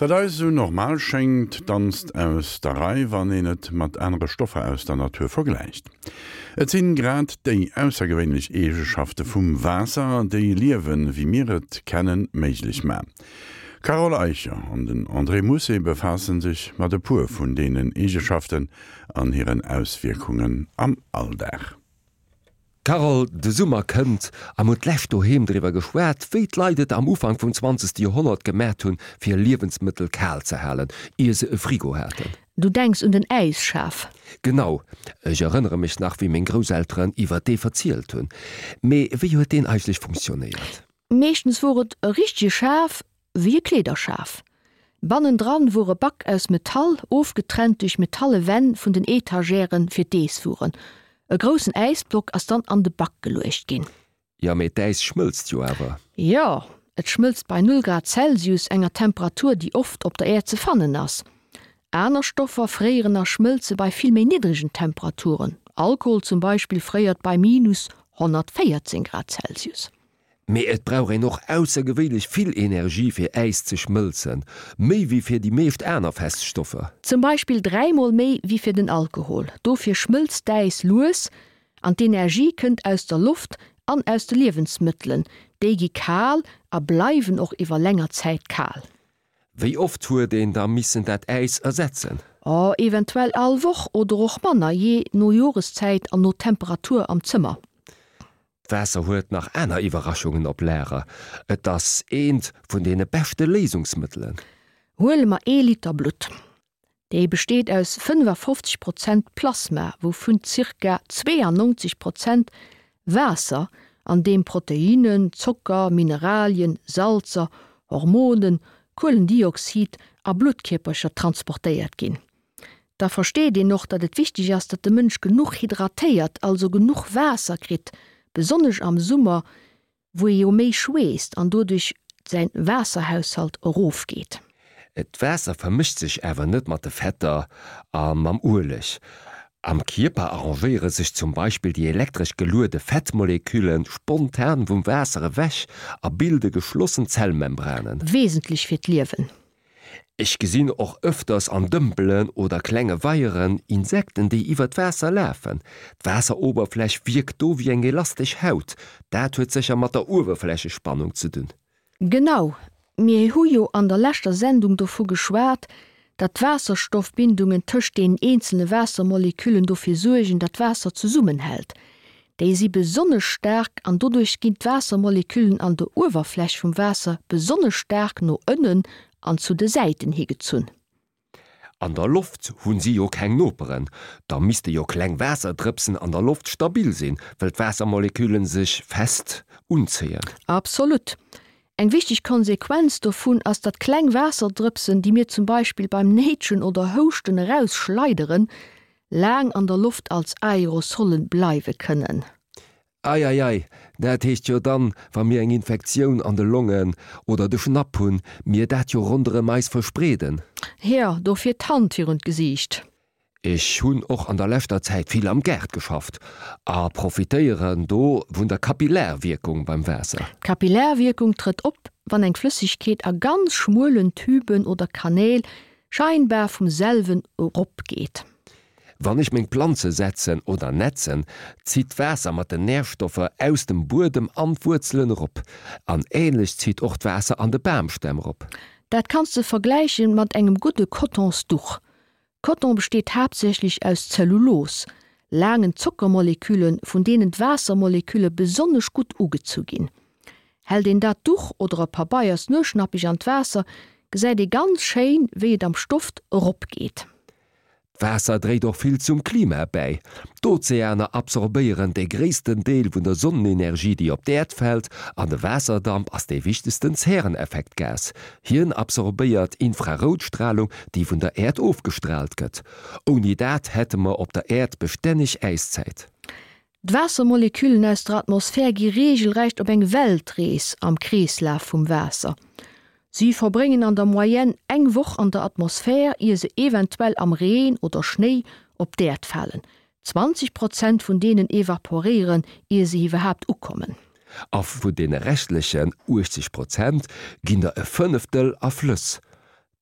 Wat eis esou normal schéngt, danzt aus der Rei, wann een et mat anere Stoffer aus der Natur vergläicht. Et sinn grad déi aussergewéinlech Eegeschafte vum Waasser, déi Liewen, wéi mir et kennen, méiglech man. D'Carole Eicher an den André Mousset befaassen sech mat e puer vun deenen Eegeschaften an hiren Auswierkungen am Alldag. Carole, de Summer kënnt a mir hunn d'lescht doheem driwwer geschwat, wéi d'Leit et am Ufank vum zwanzegste Joerhonnert gemat hunn, fir Liewensmëttel kal ze halen, ier se e Frigo haten. Du denks un den Äisschaf? Genau, ech erënnere mech nach, wéi meng Grousselteren iwwer dee verzielt hunn. Mee wéi huet deen eigentlech funktionéiert? Meeschtens wor et e richtege Schaf, wéi e Kleederschaf. Bannendran wor e Back aus Metall, ofgetrennt duerch metalle Wänn vun den Etagèren fir d'Eesswueren. E groussen Äisblock ass dann an de Back geluecht ginn. Jo, mee d'Äis schmëlzt jo awer. Jo, et schmëlzt bei null Grad Celsius, enger Temperatur, déi oft op der Äerd ze fannen ass. Aner Stoffer fréieren a schmëlze bei vill méi niddregen Temperaturen, Alkohol zum Beispill fréiert bei minus 114 Grad Celsius. Mee et brauch een och aussergewéinlech vill Energie fir Äis ze schmëlzen, méi wéi fir déi meescht aner fest Stoffer. Zum Beispill dräimol méi wéi fir den Alkohol. Dofir schmëlzt d'Äis lues an d'Energie kënnt aus der Loft an aus de Liewensmëttelen. Déi gi kal a bleiwen och iwwer länger Zäit kal. Wéi oft huet een da missen dat Äis ersetzen? Oh, eventuell all Woch oder och manner, jee no Joreszäit an no Temperatur am Zëmmer. D'Waasser huet nach aner Iwwerraschungen op Lager. Et ass eent vun deene beschte Léisungsmëttelen. Huele mer ee Liter Blutt. Dee besteet aus 55 Prozent Plasma, wouvun zirka 92 Prozent Waasser, an deem Proteinnen, Zocker, Mineralien, Salzer, Hormonen, Kuelendioxid a Bluttkierpercher transportéiert ginn. Da versteet een och, datt et wichteg ass, datt de Mënsch genuch hydratéiert, also genuch Waasser kritt, besonnesch am Summer, wou ee jo méi schweesst an doduerch säin Waasserhaushalt erofgeet. D'Waasser vermëscht sech awer net mat de Fetter a mam Ueleg. Am Kierper arrangéiere sech zum Beispill déi elektresch geluede Fettmolekülle spontan vum Waasser ewech a bilde geschlossen Zellmembranen. Wesentlech fir d'Liewen. Ech gesinn och ëfters an Dëmpelen oder klenge Weieren Insekten, déi iwwer d'Waasser lafen. D'Waasseroberfläch wierkt do wéi eng elastesch Haut. Dat huet sécher mat der Uewerflächespannung ze dunn. Genau, mir hu jo an der leschter Sendung dovu geschwat, datt d'Waasserstoffbindungen tëscht deenen eenzele Waassermoleküllen dofir suergen, datt d'Waasser zesummenhält. Déi si besonnesch staark an doduerch ginn d'Waassermoleküllen an der Uewerfläch vum Waasser besonnesch staark no ënnen an zu de Säiten higezunn. An der Loft hunn si jo keng Noperen, da misste jo kleng Waasserdrëpsen an der Loft stabil sinn, wëll d'Waassermoleküllen sech fest unzéien. Absolut. Eng wichteg Konsequenz dovun ass, datt kleng Waasserdrëpsen, déi mir zum Beispill beim Néitschen oder Houschten erausschleideren, laang an der Loft als Aerosolle bleiwe kënnen. Ei, ei, ei, dat heescht jo dann, wa mir eng Infektioun an de Longen oder de Schnapp hunn, mir dat jo ronderëm eis verspreeden. Jo, dofir d'Hand virun d'Gesiicht. Ech hunn och an der leschter Zäit vill am Gaart geschafft a profitéieren do vun der Kapillarwierkung beim Waasser. D'Kapillarwierkung trëtt op, wann eng Flëssegkeet a ganz schmuelen Tüben oder Kanäl scheinbar vum selwen erop geet. Wann ech meng Planze setzen oder netzen, zitt d'Waasser mat den Närstoffer aus dem Buedem an d'Wuerzelen erop. An ähnlech zitt och d'Waasser an de Bamstämm erop. Dat kanns de vergläichen mat engem gudde Cottonsduch. Coton besteet haaptsächlech aus Zellulos, laangen Zockermolekülen, vun deenen d'Waassermolekülle besonnesch gutt ugezu ginn. Hält een dat Duch oder e Pabeiers nueschnappeg an d'Waasser, gesäit ee ganz schéin, wéi et am Stoft erop geet. D'Waasser dréit och vill zum Klima bäi. D'Ozeaner absorbéieren de gréissten Deel vun der Sonnenenergie, déi op d'Äerd fält, an de Waasserdamp ass dee wichtegsten Zäreneffektgas. Hien absorbéiert Infraroutstralung, déi vun der Äerd ofgestraalt gëtt. Ouni dat hätte mer op der Äerd bestänneg Äiszäit. D'Waassermoleküllen aus der Atmosphär gi reegelrecht op eng Weltrees am Kreeslaf vum Waasser. Si verbréngen an der Moyenne eng Woch an der Atmosphär, ier se eventuell am Reen oder Schnéi op d'Äerd falen. 20 Prozent vun deenen evaporéieren, ier se iwwerhaapt ukommen. A vun deene reschtlechen 80 Prozent ginn der e Fënneftel a Flëss.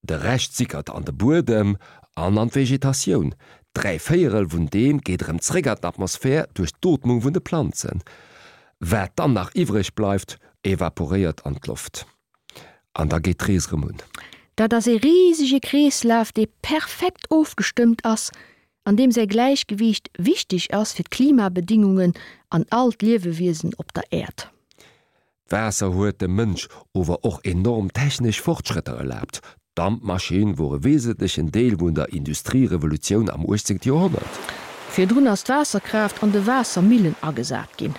De Rescht sickert an de Buedem an an d'Vegetatioun. Dräivéierel vun deem geet erëm zréck an d'Atmosphär duerch d'Ootmung vun de Planzen. Wat dann nach iwwreg bleift, evaporéiert an d'Loft. An da geet d'Rees erëm un. Dat ass ee risege Kreeslaf, dee perfekt ofgestëmmt ass an deem säi Gläichgewiicht wichteg ass fir d'Klimabedingungen an all d'Liewewiesen op der Äerd. D'Waasser huet dem Mënsch ower och enorm technesch Fortschrëtter erlaabt. D'Dampmaschinn wor e wesentlechen Deel vun der Industrierevolutioun am 18. Joerhonnert. Virdrun ass d'Waasserkraaft an de Waassermillen agesat ginn.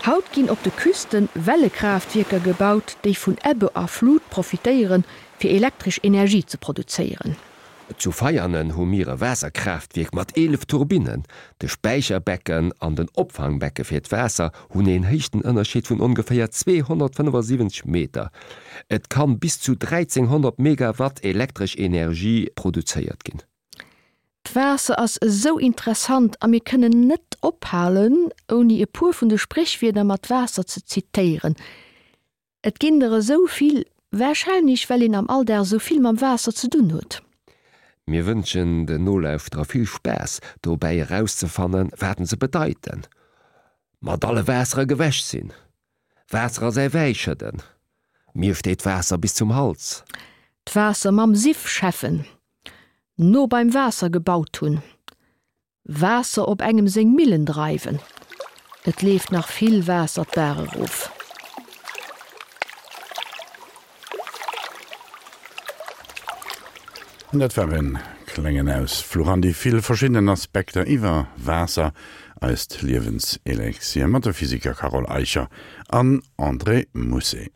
Haut ginn op de Küsten Wellekraaftwierker gebaut, déi vun Ebbe a Flut profitéieren, fir elektresch Energie ze produzéieren. Zu Veianen hu mir e Waasserkraaftwierk mat 11 Turbinnen. De Späicherbecken an den Opfangbecke fir d'Waasser hunn een Héichtenënnerscheed vun ongeféier 275 Meter. Et kann bis zu 1300 Megawatt elektresch Energie produzéiert ginn. D'Waasser ass esou interessant a mir kënnen net ophalen, ouni e puer vun de Spréchwierder mat Waasser ze zitéieren. Et ginn der esou vill, warscheinlech well een am Alldag esou vill mam Waasser ze dunn huet. Mir wënschen den Nolauschterer vill Spaass dobäi erauszefannen, wat se bedeiten. Mat alle Waassere gewäsch sinn. Waasser a säi Wäi schëdden. Mir steet d'Waasser bis zum Hals. D'Waasser mam Siff schäffen. No beim Waasser gebaut hunn. Waasser op engem seng Millen dreiwen. Et leeft nach vill Waasser d'Baach erof. An dat war en klengen Ausfluch an déi vill verschiddenen Aspekter iwwer Waasser, eist Liewenselexir, mat de Physiker Carole Eicher an André Mousset.